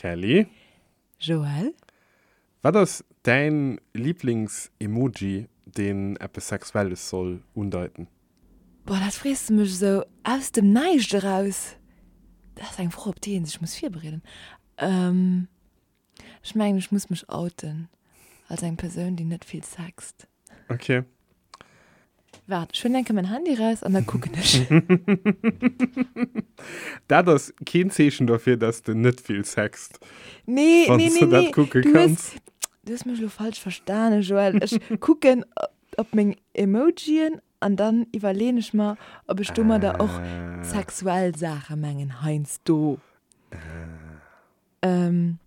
Kelly? Joël? Wat ass däin Liiblings-Emoji, deen eppes Sexuelles soll undeiten? Boah, dat frees de mech esou aus dem Näischt eraus. Dat ass eng Fro, op déi ee sech muss virbereeden. Ech mengen, ech muss mech outen als eng Persoun, déi net vill sext. Ok. Waart, ech huelen eng Kéier mäin Handy raus an da kucken ech. Dat ass keen Zeechen derfir, dass de net vill sext. Nee, Wann nee, s nee, de dat nee. kucke Du hues, kanns. du hues mech elo falsch verstanen, Joël. Ech kucken op meng Emojien an dann iwwerleeën ech mer, ob ech domadder och Ah. sexuell Saache mengen heiansdo. Ah. Ähm,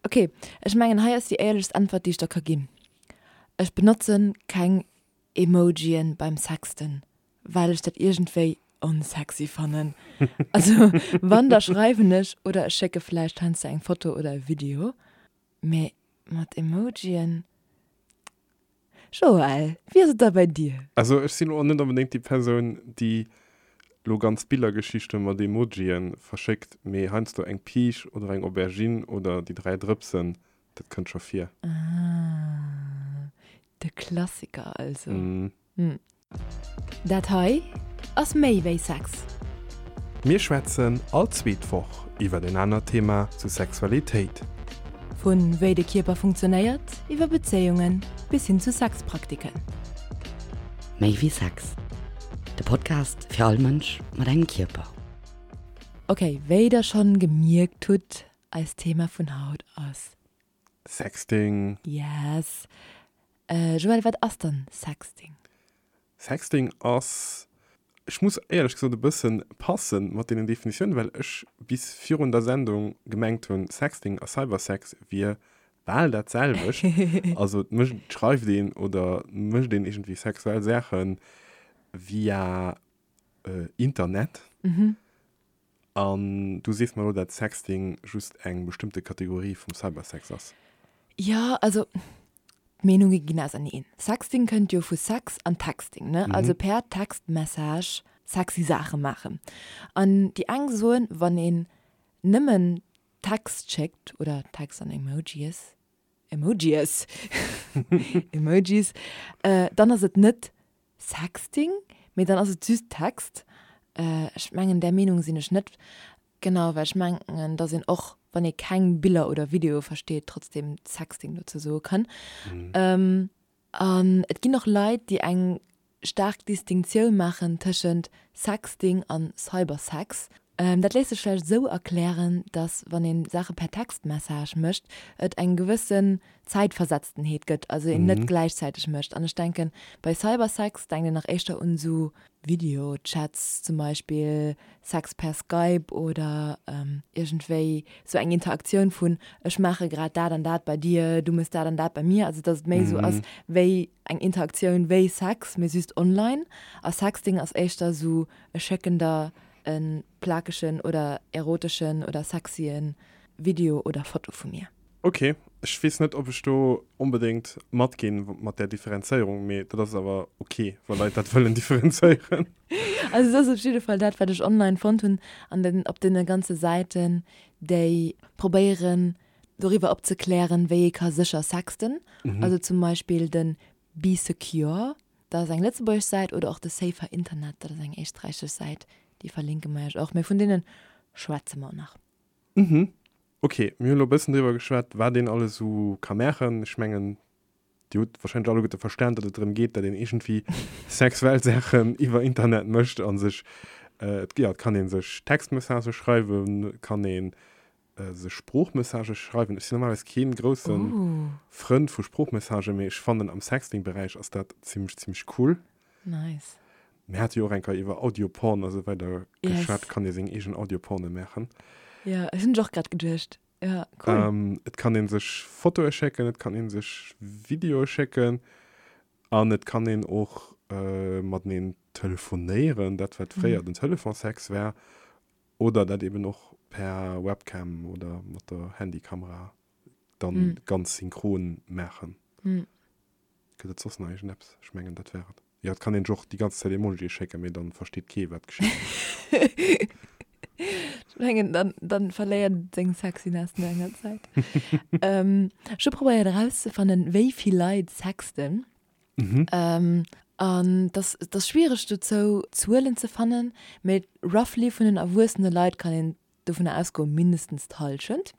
ok, ech mengen hei ass déi éierlechst Äntwert, déi ech der ka ginn. Ech benotzen keng Emojien beim Sexten, well ech dat iergendwéi onsexy fannen. Also wann da schreiwen ech oder ech schécke vläicht heiansdo eng Foto oder e Video, mee mat Emojien. Joël, wéi ass et da bei dir? Also ech sinn och net onbedéngt déi Persoun, déi lo ganz Billergeschichte mat Emojien verschéckt, mee heiansdo eng Piisch oder eng Aubergine oder déi 3 Drëpsen, dat kënnt scho vir. Ah, de Klassiker also. Mm. Dat hei ass méi wéi Sex. Mir schwätzen all zweet Woch iwwer en anert Thema zu Sexualitéit. Vu wéi de Kierper funktionéiert, iwwer Bezéiungen bis hin zu Sexpraktiken. Méi wéi Sex, de Podcast fir all Mënsch mat engem Kierper. Ok, wéi der schonn gemierkt hutt, eist Thema vun haut ass. Sexting. Yes. Joël, wat ass dann Sexting? Sexting ass, ech muss éierlech gesot e bëssen passen mat deenen Definitiounen, well ech bis virun der Sendung gemengt hunn, Sexting a Cybersex wier bal dat selwecht. Also et mécht, et schreift een oder mécht een iergendwéi sexuell Saache via Internet. An du sees mer elo, dat Sexting just eng bestëmmte Kategorie vum Cybersex ass? Jo, also d'Meenunge ginn auserneen. Sexting kënnt jo vu Sex an Texting, ne? Also per Textmessage sexy Saache maachen. An déi eng soen, wann een nëmmen Text schéckt oder Text an Emojies, Emojies, Emojis, dann ass et net Sexting, mee dann ass et just Text. Ech mengen där Meenung sinn ech net. Genau, well ech mengen, dass een och wann ee keng Biller oder Videoe versteet, trotzdem Sexting dozou soe kann. An et ginn och Leit, déi eng staark Distinctioun maachen tëschent Sexting an Cybersex. Dat léisst sech vläicht esou erklären, dass wann ee Saache per Textmessage mécht, et eng gewëssen Zäitversetztenheet gëtt, also een net gläichzäiteg mécht. An ech denken, bei Cybersex denkt een nach éischter un esou Videochats zum Beispill, Sex per Skype oder iergendwéi esou eng Interaktioun vun ech maache grad dat an dat bei dir, du méchs dat an dat bei mir. Also dass et méi esou ass wéi eng Interaktioun wéi Sex, mee just online. A Sexting ass éischter esou ech schécken der e plakegen oder eroteschen oder sexyen Video oder Foto vu mir. Ok, ech weess net ob ech do onbedéngt matginn mat där Differenzéierung, mee dat ass awer ok wa Leit dat wëllen differenzéieren. Also et ass op jidde Fall dat wat ech online fonnt hunn an den op deene ganze Säiten déi probéieren doriwwer opzeklären wéi ee ka sécher sexten, also zum Beispill de Bee Secure, dat ass eng lëtzebuergesch Säit, oder och de Safer Internet, dat ass eng éisträichesch Säit, déi verlinke mer iech och, mee vun deene schwätze mer nach. Mhm. Ok, mir hunn elo e bëssen driwwer geschwat, wat een alles esou ka maachen. Ech mengen, Dir hutt warscheinlech alleguerte verstan, datt et drëm geet, datt een iergendwéi sexuell Saachen iwwer Internet mécht a sech, jo, et kann ee sech Textmessagë schreiwen, et kann ee sech Sproochmessagë schreiwen. Ech sinn normalerweis kee grousse Frënd vu Sproochmessagë, mee ech fannen, am Sexting-Beräich ass dat zimmlech, zimmlech cool. Nice. Mir hate jo och eng Keier iwwer Audioporn a sou weider geschwat. Kann ee seng eegen Audioporne maachen. Jo, ech hunn ech och grad geduecht. Jo, cool. Et kann ee sech Fotoe schécken, et kann ee sech Videoe schécken an et kann een och mateneen telefonéieren, dat wat fréier den Telefonsex war, oder dat eben och per Webcam oder mat der Handykamera dann ganz synchron maachen. Gëtt et soss nach iergendeppes? Ech mengen, dat war et. Jo, et kann een sech och déi ganz Zäit Emojie schécken, mee dann versteet kee wat geschitt. Ech mengen, dann, dann verléiert et seng Sexiness no enger Zäit. ähm, ech hu probéiert erauszefannen, wéi vill Leit sexten. Mhm. Ähm, an dat ass schwiereg dozou Zuelen ze fannen, mee roughly vun den erwuessene Leit kann een dovunner ausgoen, mindestens d'Hallschent.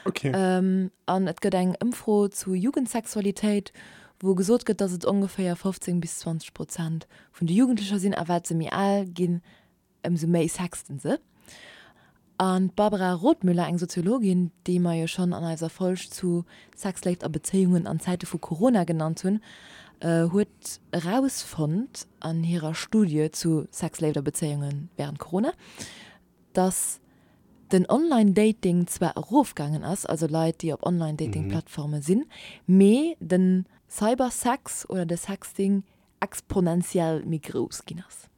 Okay. Ähm, an et gëtt eng Ëmfro zu Jugendsexualitéit, wou gesot gëtt, datt et ongeféier 15 bis 20 Prozent vun de Jugendlecher sinn, a wat se méi al ginn, ëmsou méi sexten se. An d'Barbara Rothmüller, eng Soziologin, déi mer jo schonn an eiser Folg zu Sex, Léift a Bezéiungen an Zäite vu Corona genannt hunn, huet erausfonnt an hirer Studie zu Sex, Léift a Bezéiunge wärend Corona, dass den Online-Dating zwar erofgaangen ass, also Leit, déi op Online-Dating-Plattforme sinn, mee de Cybersex oder de Sexting exponentiell méi grouss ginn ass.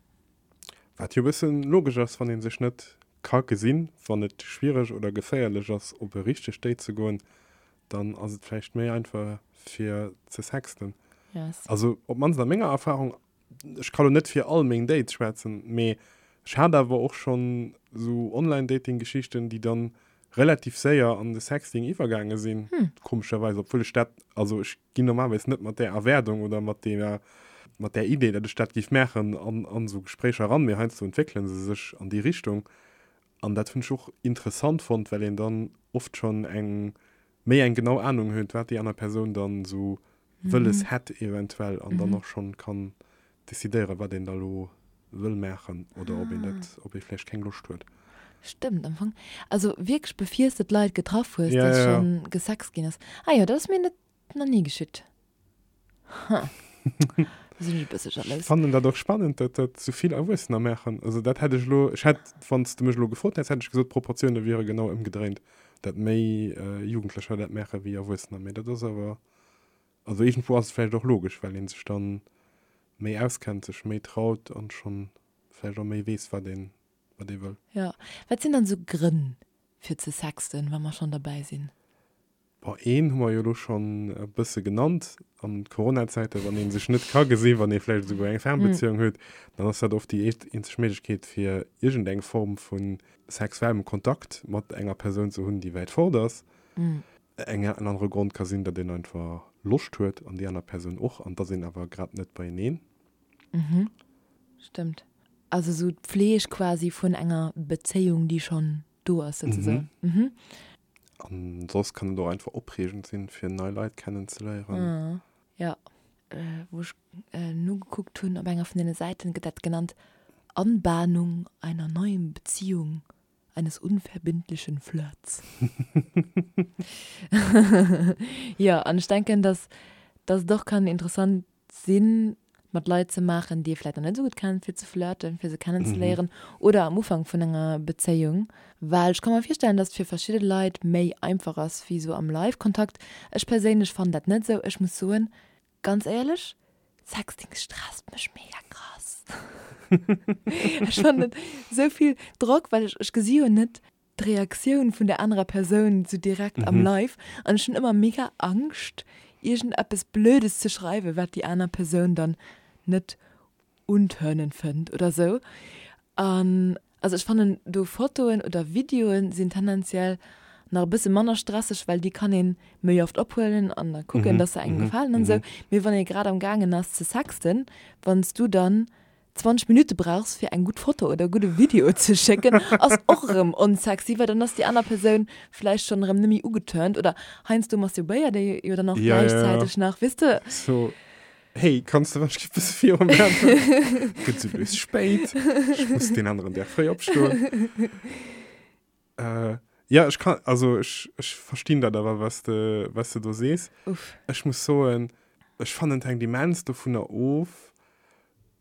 Wat jo e bëssen logesch ass, wann ee sech net ka gesinn, wann et schwiereg oder geféierlech ass op e richtegt Date ze goen, dann ass et vläicht méi einfach fir ze sexten. Yes. Also op d'mannst a menger Erfahrung, ech ka lo net fir all meng Dates schwätzen, mee ech hat awer och schonn esou Online-Dating-Geschichten, déi dann relativ séier an de Sexting iwwergaange sinn, komescherweis, obwuel ech dat, also ech ginn normalerweis net mat där Erwaardung oder mat deeër, mat där Idee, datt ech dat géif maachen, an, an esou Gespréicher eran, mee heiansdo entwéckele se sech an déi Richtung. An dat hunn ech och interessant fonnt, well een dann oft schonn eng, méi eng genau Anung huet, wat déi aner Persoun dann esou wëlles hätt eventuell an dann och schonn kann decidéieren, wat een da lo wëll maachen oder ob een dat, ob ee vläicht keng Loscht huet. Stëmmt am Fong. Also wierklech befiers de d'Leit getraff hues, Ja, dass ja, ja. schonn gesext ginn ass. Ah jo, dat ass mir net nach ni geschitt. Ha. Da sinn ech e bësse Ech jalous. fannen dat och spannend, datt dat sou vill Erwuessener maachen. Also dat hätt ech elo, ech hätt, wann s de mech elo gefrot häss, hätt ech gesot, d'Proportioune wiere genau ëmgedréint, dat méi Jugendlecher dat maache wéi Erwuessener. Mee dat ass awer Also iergendwou ass et vläicht och logesch, well ee sech dann méi auskennt, sech méi traut an schonn vläicht och méi weess, wat een, wat ee wëll. Jo. Wat sinn dann esou Grënn fir ze sexten, wa mer schonn derbäi sinn? Bon, een hu mer jo elo schonn e bësse genannt, an Corona-Zäiten, wann ee sech net ka gesinn, wann ee vläicht esouguer eng Fernbeziehung huet, dann ass dat oft déi eenzeg Méiglechkeet, fir iergendeng Form vu sexuellem Kontakt mat enger Persoun ze hunn, déi wäit fort ass. Eng en anere Grond ka sinn, datt een einfach Loscht huet an déi aner Persoun och an et ass een awer grad net beieneen. Mhm, stëmmt. Also sou d'Pfleg quasi vun enger Bezéiung, déi schonn do ass souzesoen. Mhm. An soss kann et och einfach opreegend sinn, fir nei Leit kennenzeléieren. Jo, wou ech nogekuckt hunn op enger vun deene Säiten, gëtt dat genannt Anbahnung einer neuen Beziehung. eines unverbindlichen Flirts. Jo, an ech denken, dass dass et och kann interessant sinn, mat Leit ze maachen, déi ee vläicht nach net esou gutt kennt, fir ze flirten, fir se kennenzeléieren oder am Ufank vun enger Bezéiung. Well ech ka mer virstellen, dass et fir verschidde Leit méi einfach ass wéi esou am Live-Kontakt. Ech perséinlech fannen dat net esou. Ech muss soen, Ganz éierlech, Sexting stresst mech mega krass. Ech fannen esou vill Drock, well ech ech gesi jo net d'Reaktioun vun der anerer Persoun sou direkt am Live an ech hunn ëmmer mega Angscht iergendeppes Blödes ze schreiwen, wat déi aner Persoun dann net untörnend fënnt oder sou. An also ech fannen do Fotoen oder Videoen sinn tendenziell nach e bësse manner stresseg, well déi kann een méi oft ophuelen an da kucken, dass se engem gefalen an sou. Mee wann ee grad am gaangen ass ze sexten, wann s du dann 20 Minutte brauchs fir eng gutt Foto oder e gudde Video ze schécken, ass och erëm onsexy, well dann ass déi aner Persoun vläicht schonn erëm net méi ugeturnt oder heiansdo masturbéiert ee jo dann och gläichzäiteg nach, weess de. Hey, kanns de wann ech bësse viru maachen? Gëtt sou lues spéit. Ech muss deen aneren Dag fréi opstoen. Äh, ja, ech kann, also ech, ech verstinn dat awer, was de, was de do sees. Uff. Ech muss soen, ech fannen et hänkt immens dovunner of,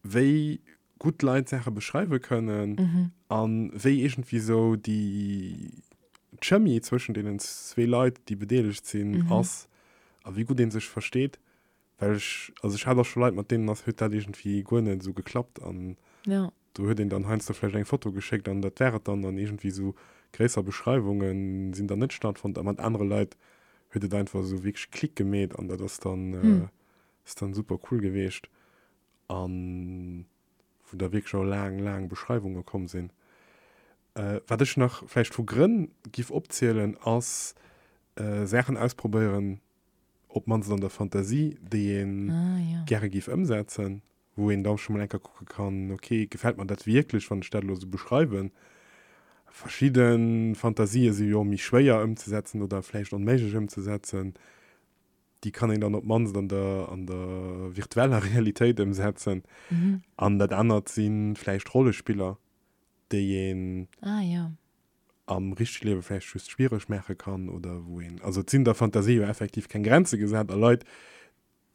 wéi gutt Leit Saache beschreiwe kënnen an wéi iergendwéi sou déi d'Chemie zwëschen deenen zwee Leit, déi bedeelegt sinn, ass a wéi gutt ee sech versteet. Well ech, also ech hat och scho Leit, mat deenen ass, huet dat iergendwéi guer net esou geklappt an Ja. do huet een dann heiansdo vläicht eng Foto geschéckt an dat war et dann an iergendwéi esou gréisser Beschreiwunge sinn dann net stattfonnt a mat anere Leit huet et einfach esou wierklech Klick gemeet an dat ass dann, ass dann super cool geweecht an wou da wierklech och laang, laang Beschreiwunge komm sinn. Wat ech nach vläicht vu Grënn giff opzielen, ass Saachen ausprobéieren, op d'mannst an der Fantasie, déi ee gäre giff ëmsetzen, wou een da scho mol eng Kéier kucke kann, ok, gefält mer dat wierklech, wann ech dat elo esou beschreiwen? Verschidde Fantasië si jo méi schwéier ëmzesetzen oder vläicht onméiglech ëmzesetzen. Déi kann een dann op d'mannst an der, an der virtueller Realitéit ëmsetzen. An dat anert si vläicht Rollespiller, déi een ah, ja. am richtege Liewe vläicht just schwiereg maache kann oder wou een, also et sinn der Fantasie jo effektiv keng Grenze gesat a Leit,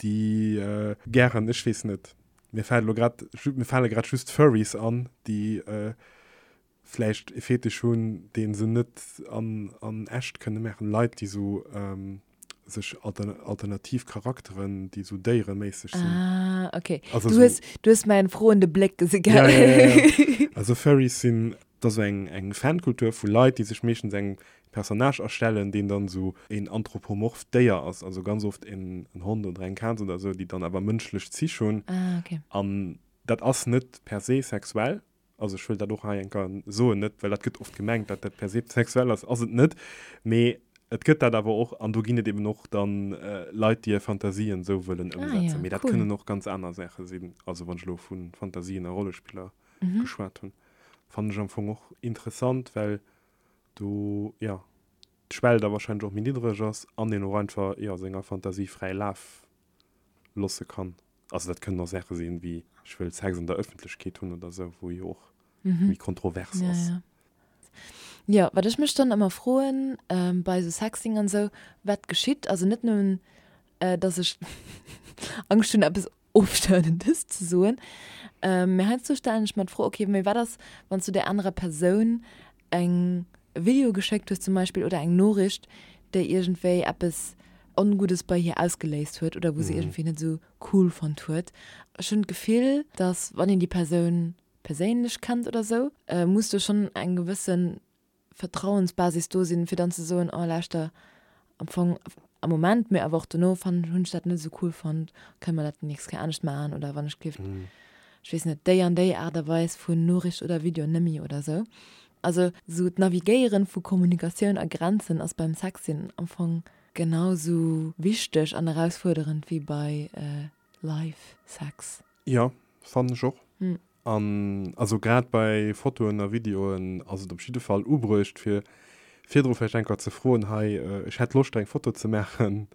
déi gären, ech weess net, mir fält elo grad, mir fale grad just Furries an, déi vläicht e Fetisch hunn, dee se net an, an echt kënne maachen, Leit, déi sou sech alternativ Charakteren, déi sou déiereméisseg sinn. Ah, okay. Also du, hues, du hues mäin froende Bléck gesi, gell? Ja, ja, ja, ja. Also Furries sinn, dat ass eng, eng Fankultur vu Leit, déi sech meeschtens eng Personnage erstellen, deen dann sou een anthropomorpht Déier ass, also ganz oft en, en Hond oder eng Kaz oder sou, déi dann awer mënschlech Zich hunn. Ah, okay. An dat ass net per se sexuell, Also ech wëll dat och hei eng Kéier soen, net well dat gëtt oft gemengt, datt dat per se sexuell ass, ass et net, mee et gëtt dat awer och an do ginn et eben och dann Leit, déi hir Fantasien esou wëllen ëmsetzen. Mee dat kënnen och ganz aner Saache sinn. Also wann ech elo vu Fantasien a Rollespiller geschwat hunn, fannen ech am Fong och interessant, well do, jo, d'Schwell da wahrscheinlech och méi niddreg ass an een och einfach, jo, senger Fantasie fräi Laf losse kann. Also dat kënnen och Saache sinn, wéi ech wëll Sex an der Ëffentlechkeet hunn oder esou, wou jo och méi kontrovers ass. Ja, ja. Jo, wat ech mech dann ëmmer froen bei esou Sexting an esou, wat geschitt, also net nëmmen, dass ech Angscht hunn, eppes Ofstouendes ze soen, mee heiansdo stellen ech mer d'Fro, okay, mee wat ass, wann s du där anerer Persoun eng e Video geschéckt hues zum Beispill oder eng Noriicht, déi iergendwéi eppes Onguddes bei hir ausgeléist huet oder wou se iergendwéi net esou cool fonnt huet. Ech hunn d'Gefill, dass wann een déi Persoun perséinlech kennt oder esou, muss do schonn eng gewësse Vertrauensbasis do sinn, fir dann ze soen, oh lauschter, am Fong am Moment, mee awer och dono fannen, hunn ech dat net esou cool fonnt, kënne mer dat déi nächst Kéier anescht maachen oder wann ech gelift, ech weess net, déi an déi Aart a Weis vun Noriicht oder Video nëmmi oder esou. Also esou d'Navigéieren vu Kommunikatioun a Grenzen ass beim Sexting am Fong genau esou wichteg an erausfuerderend wéi bei Live Sex. Jo, fannen ech och. An also grad bei Fotoen a Videoen ass et op jidde Fall ubruecht fir virdru vläicht eng Kéier ze froen, hei ech hätt Loscht eng Foto ze maachen,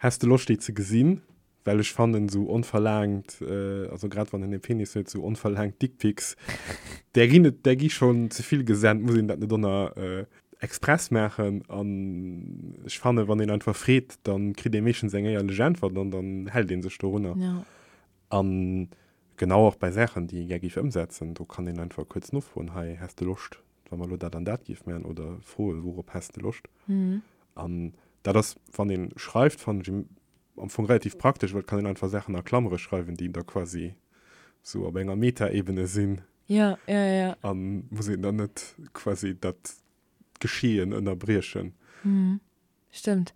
häss de Loscht déi ze gesinn? Well ech fannen esou onverlaangt, also grad wann een e Penis huet, esou onverlaangt Dickpics, där ginn et, där gi schonn ze vill gesent, muss een dat net ënner express maachen. An ech fannen, wann een einfach freet, da kritt ee meeschtens eng éierlech Äntwert an dann hält ee sech dorunner. An genau och bei Saachen, déi ee gär géif ëmsetzen, do kann een einfach kuerz nofroen, hei, häss de Loscht, wa mer elo dat an dat géif maachen? Oder froen, wourop häss de Loscht? An dat ass, wann ee schreift, fannen ech am Fong relativ praktesch, well et kann een einfach Saachen a Klammere schreiwen, déi da quasi sou op enger Metaebene sinn. Ja, ja, ja. An muss een dann net quasi dat Geschehen ënnerbriechen. Stëmmt.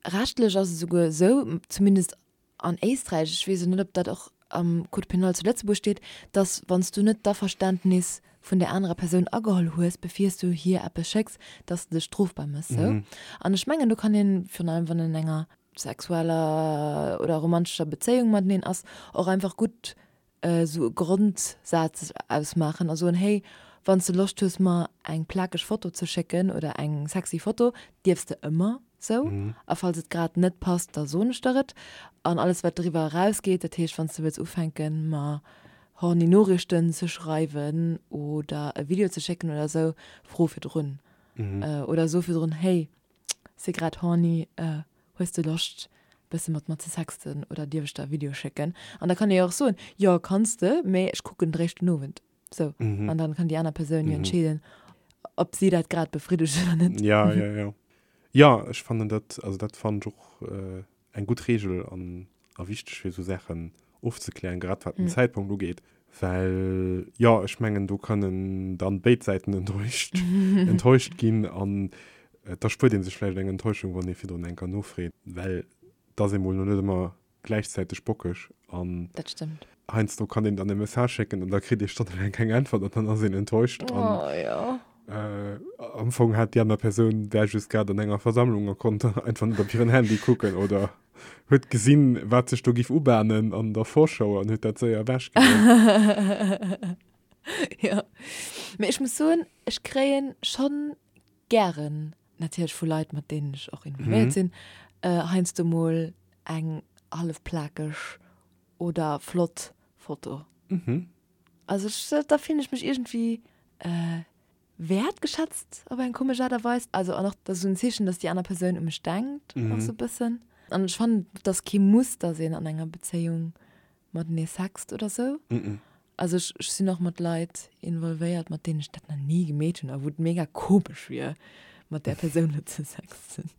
Rechtlech ass et esouguer esou, zumindest an Éisträich, ech weess elo net, ob dat och am Code pénal zu Lëtzebuerg steet, dass wann s du net d'Averständnis vun där anerer Persoun ageholl hues, bevir s du hir eppes schécks, dass de dech strofbar méchs. Sou. An ech mengen, do kann een, virun allem wann een an enger sexueller oder romantescher Bezéiung mateneen ass, och einfach gutt esou e Grondsaz ausmaachen a soen, hey, wann s de Loscht hues mer eng plakeg Foto ze schécken oder eng sexy Foto, dierfs de ëmmer sou. A falls et grad net passt, da soen ech der et. An alles wat driwwer erausgeet, dat heescht wann s de wëlls ufänken mer horny Noriichten ze schreiwen oder e Video ze schécken oder sou, fro virdrun. Oder so virdrun, hey, si grad horny, Hues de Loscht bësse mat mer ze sexten oder dierf ech der e Video schécken? An da kann ee jo och soen, jo kanns de, mee ech kucken et eréischt den Owend. Sou. An dann kann déi aner Persoun jo entscheeden, ob si dat grad befriddegt oder net. Ja, ja, ja. Jo, ech fannen dat, also dat fannen ech och eng gutt Reegel an a wichteg fir esou Saachen ofzeklären, grad wat den Zäitpunkt ugeet, well jo, ech mengen do kënnen dann béid Säiten enttäuscht enttäuscht ginn an da spuert ee sech vläicht eng Enttäuschung, wann ee virdrun eng Kéier nofreet, well et ass ee mol no net ëmmer gläichzäiteg bockeg an Dat stëmmt. heiansdo kann een dann e Message schécken an da kritt ee stonnelaang keng Äntwert an dann ass een enttäuscht an Oh jo. Am Fong hat déi aner Persoun war just grad an enger Versammlung a konnt einfach net op hiren Handy kucken oder huet gesinn, wat sech do giff ubahnen an der Vorschau an huet dat séier ewechgedréckt. Jo, mee ech muss soen, ech kréien schonn gären, natierlech vu Leit, mat deenen ech och involvéiert sinn, heiansdo mol eng hallef plakeg oder flott Foto. Also ech, da fillen ech mech iergendwéi wäertgeschätzt op eng komesch Aart a Weis. Also an och dat ass esou en Zeechen, dass déi aner Persoun u mech denkt och esou e bëssen. An ech fannen, et ass kee Muss, dass een an enger Bezéiung matenee sext oder sou. Also ech, ech sinn och mat Leit involvéiert, mat deenen ech dat nach ni gemeet hunn a wou et mega komesch wier, mat där Persoun elo ze sexten.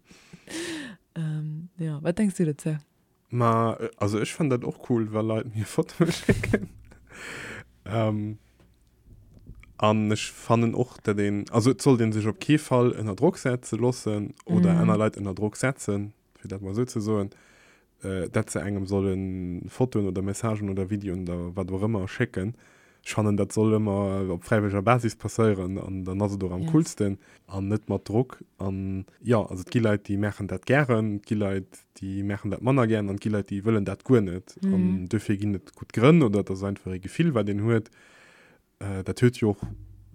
Jo, wat denks du dozou? Ma also ech fannen dat och cool, wa Leit mir Fotoe schécken. An ech fannen och, dat een, also et sollt ee sech op kee Fall ënner Drock setze loossen oder aner Leit ënner Drock setzen, fir dat mol esou ze soen, dat se engem solle Fotoen oder Messagen oder Videoen oder wat och ëmmer schécken. Ech fannen, dat soll ëmmer op fräiwëlleger Basis passéieren an dann ass et och am coolsten an net mat Drock. An jo, also et gi Leit, déi maachen dat gären, et gi Leit, déi maachen dat manner gären an et gi Leit, déi wëllen dat guer net. An duerfir ginn et gutt Grënn oder et ass einfach ee Gefill, wat een huet. Dat huet jo och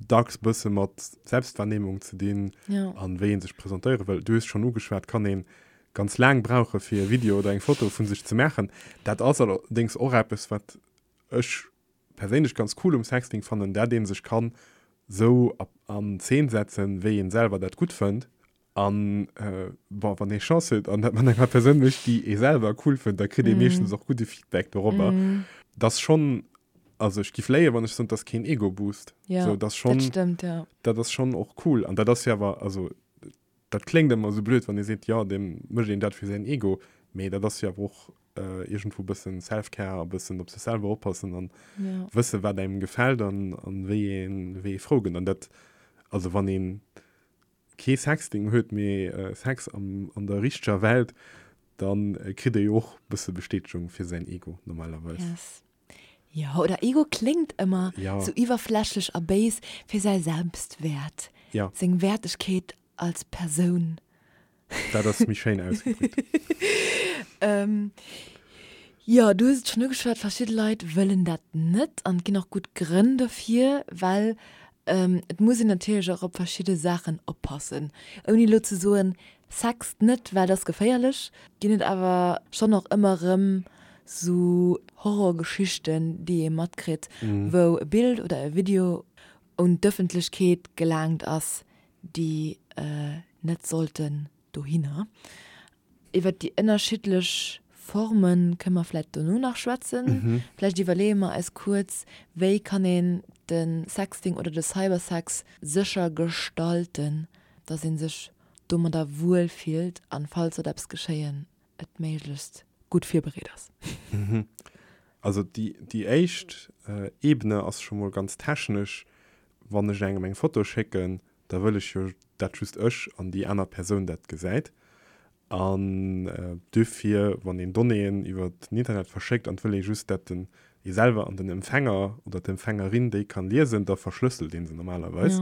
dacks bësse mat Selbstwahrnehmung ze dinn an wéi ee sech presentéiere wëll. Du hues schonn ugeschwat, kann ee ganz laang brauche fir e Video oder eng Foto vu sech ze maachen. Dat ass allerdéngs och eppes, wat ech perséinlech ganz cool um Sexting fannen, dat een sech kann sou an Zeen setzen wéi een selwer dat gutt fënnt an bon wann ee Chance huet an dat mat enger Persoun mécht déi ee selwer cool fënnt, da kritt ee meeschtens och gudde Feedback dorobber. Dat ass schonn, also ech giff léien wann ech soen, dat ass keen Ego Boost, sou dat ass schonn, dat ass schonn och cool an dat ass jo awer, also dat kléngt ëmmer esou blöd wann ee seet jo deem mécht een dat fir säin Ego, mee dat ass jo awer och iergendwou bëssen Self-Care a bëssen op sech selwer oppassen an ja. wësse wat engem gefält an, an wéi een, wéi ee frou gëtt. An dat, also wann een kee Sexting huet, mee äh, Sex am, an der richteger Welt, dann äh, kritt ee jo och bësse Bestätegung fir säin Ego normalerweis. Yes. Jo, oder Ego kléngt ëmmer ja. sou iwwerflächlech a béis, fir säi Selbstwäert, ja. seng Wertegkeet als Persoun. Dat ass méi schéin ausgedréckt. ähm, jo, du hues et schonn ugeschwat, verschidde Leit wëllen dat net an et ginn och gutt Grënn dofir, well ähm, et muss een natierlech och op verschidde Saachen oppassen. Ouni elo ze soen, sext net, well et ass geféierlech, ginn et awer schonn och ëmmer erëm sou Horrorgeschichten, déi ee matkritt, wou e Bild oder e Video un d'Ëffentlechkeet gelaangt ass, déi net sollten dohinner. Iwwert déi ënnerschiddlech Forme kënne mer vläicht dono nach schwätzen. Vläicht iwwerleeë mer eis kuerz, wéi kann een de Sexting oder de Cybersex sécher gestalten, dass ee sech domadder wuel fillt an, falls sollt eppes geschéien, et méiglechst gutt virbereet ass. Also déi éischt Ebene ass scho mol ganz technesch, Wann ech engem eng Foto schécken, da wëll ech jo dat just ech an déi aner Persoun dat gesäit. An duerfir, wann een Donnéeën iwwer den Internet verschéckt an et wëll ee just dat den ee selwer an den Empfänger oder d'Empfängerin déi kann liesen, da verschlësselt ee se normalerweis.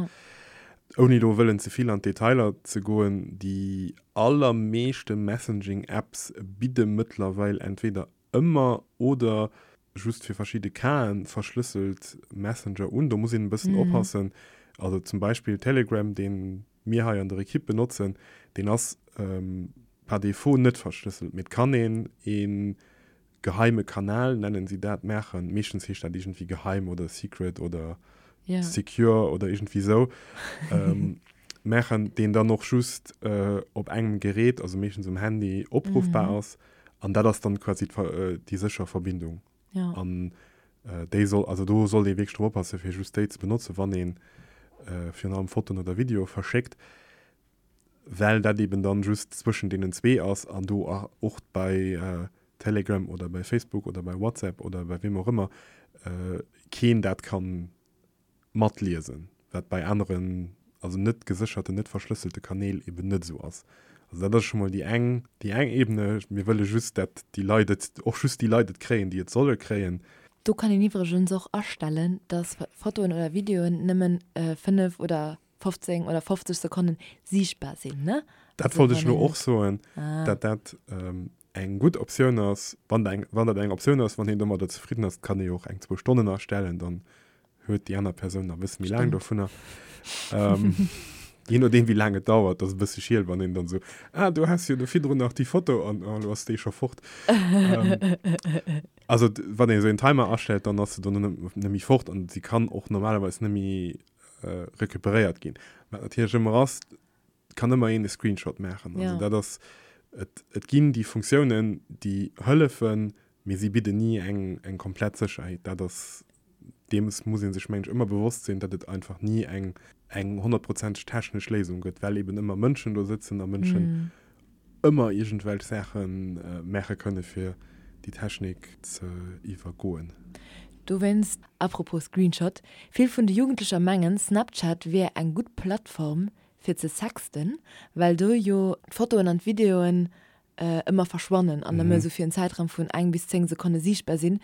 Ouni elo wëllen ze vill an d'Detailer ze goen, déi allermeeschte Messaging-Apps bidde mëttlerweil entweder ëmmer oder just fir verschidde Casen verschlësselt Messenger un. Do muss een e bëssen oppassen. Also zum Beispill Telegram, dee mir hei an der Ekipp benotzen, deen ass par défaut net verschlësselt, mee et kann een ee geheime Kanal, nennen si dat, maachen. Meeschtens heescht dat iergendwéi geheim oder secret oder secure oder iergendwéi esou. Maachen, deen dann och just op engem Gerät, also meeschtens um Handy, opruffbar ass. An dat ass dann quasi déi sécher Verbindung. Ja. An déi soll, also do sollt ee wierklech drop oppassen, fir just déi ze benotzen, wann ee virun allem Fotoen oder Videoe verschéckt, well dat eben dann just zwëschen deenen zwee ass an do och bei Telegram oder bei Facebook oder bei WhatsApp oder bei weem och ëmmer keen dat kann matliesen, wat bei aneren, also net gesécherten, net verschlësselte Kanäl eben net esou ass. Also dat ass scho mol déi eng, déi eng Ebene. Mir wëlle just, dat déi Leit et, och just déi Leit et kréien, déi et solle kréien. Do kann een iwwregens och astellen, dass Fotoen oder Videoen nëmmen 5 oder. 15 oder 50 Sekonnen siichtbar sinn, ne? Dat wollt ech elo och soen, dat dat eng gutt Optioun ass. Wann eng, wann dat eng Optioun ass, wann een domadder zefridden ass, kann ee jo och eng, zwou Stonnen astellen, dann huet déi aner Persoun nach e bësse méi laang dovunner. Jee nodeem wéi laang et dauert, ass e bësse schiel, wann een dann esou, ah du has jo do virdrun nach déi Foto an oh elo ass déi scho fort. Also wann een esou een Timer astellt, dann ass se dono net méi fort an si kann och normalerweis net méi recuperéiert ginn. Wat natierlech ëmmer ass, et kann ëmmer een e Screenshot maachen. Also dat ass, et, et ginn déi Funktiounen, déi hëllefen, mee si bidden ni eng, eng komplett Sécherheet. Dat ass, deems muss ee sech, mengen ech, ëmmer bewosst sinn, datt et einfach ni eng, eng honnertprozenteg technesch Léisung gëtt, well eben ëmmer Mënschen do sëtzen a Mënschen ëmmer iergendwelch Saache maache kënne fir déi Technik ze iwwergoen. Dowéinst, apropos Screenshot, vill vun de Jugendlecher mengen, Snapchat wier eng gutt Plattform fir ze sexten, well do jo d'Fotoen an d'Videoen ëmmer verschwannen an nëmme esou fir en Zäitraum vun eng bis 10 Sekonne siichtbar sinn.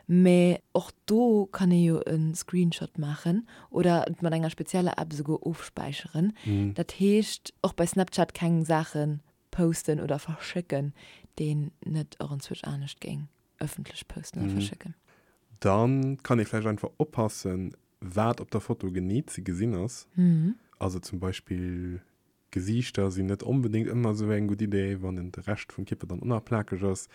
Mee och do kann ee jo e Screenshot maachen oder et mat enger spezieller App esouguer ofspäicheren. Dat heescht, och bei Snapchat keng Saache posten oder verschécken, déi een net och enzwousch anescht géing ëffentlech posten oder verschécken. Da kann ee vläicht einfach oppassen, wat op der Foto genee ze gesinn ass. Also zum Beispill Gesiichter sinn net onbedéngt ëmmer esou eng gutt Idee, wann en de Rescht vum Kierper dann och nach plakeg ass.